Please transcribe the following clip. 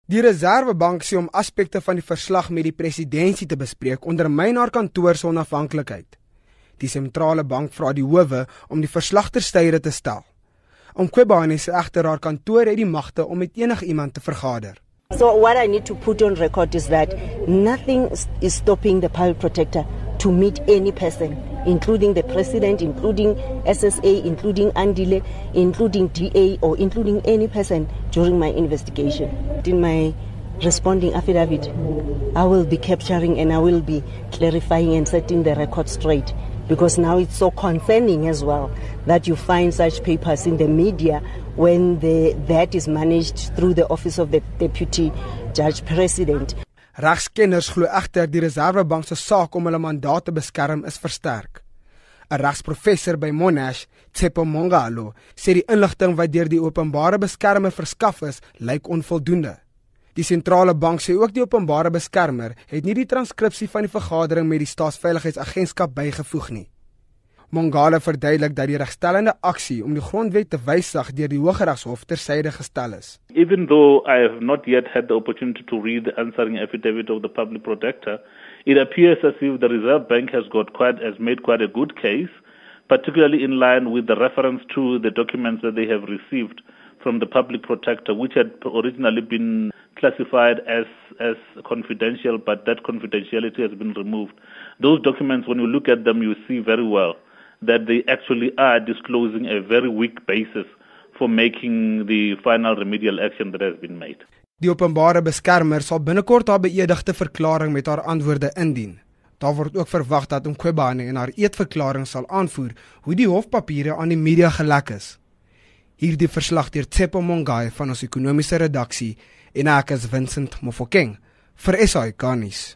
Die Reservebank sê om aspekte van die verslag met die presidentsie te bespreek ondermyn haar kantoor se onafhanklikheid. Die sentrale bank vra die howe om die verslag ter syde te stel. Mkhwebane sê egter haar kantoor het die magte om met enigiemand te vergader. So what I need to put on record is that nothing is stopping the public protector to meet any person, including the president, including SSA, including Andile, including DA, or including any person during my investigation. In my responding affidavit, I will be capturing and I will be clarifying and setting the record straight, because now it's so concerning as well that you find such papers in the media when that is managed through the office of the deputy judge president. Regskenners glo egter die Reservebank se saak om hulle mandaat te beskerm is versterk. 'n Regsprofessor by Monash, Tshepo Mongalo, sê die inligting wat deur die openbare beskermer verskaf is, lyk onvoldoende. Die sentrale bank sê ook die openbare beskermer het nie die transkripsie van die vergadering met die Staatsveiligheidsagentskap bygevoeg nie. Mongalo verduidelik dat die regstellende aksie om die grondwet te wysig deur die Hooggeregshof tersyde gestel is. Even though I have not yet had the opportunity to read the answering affidavit of the public protector, it appears as if the Reserve Bank has made quite a good case, particularly in line with the reference to the documents that they have received from the public protector, which had originally been classified as confidential, but that confidentiality has been removed. Those documents, when you look at them, you see very well that they actually are disclosing a very weak basis for making the final remedial action that has been made. Die openbare beskermer sal binnekort haar beëdigde verklaring met haar antwoorde indien. Daar word ook verwag dat Mkhwebane in haar eetverklaring sal aanvoer hoe die hofpapiere aan die media gelek is. Hierdie verslag deur Tshepo Mongalo van ons ekonomiese redaksie en ek is Vincent Mofokeng vir SAK nuus.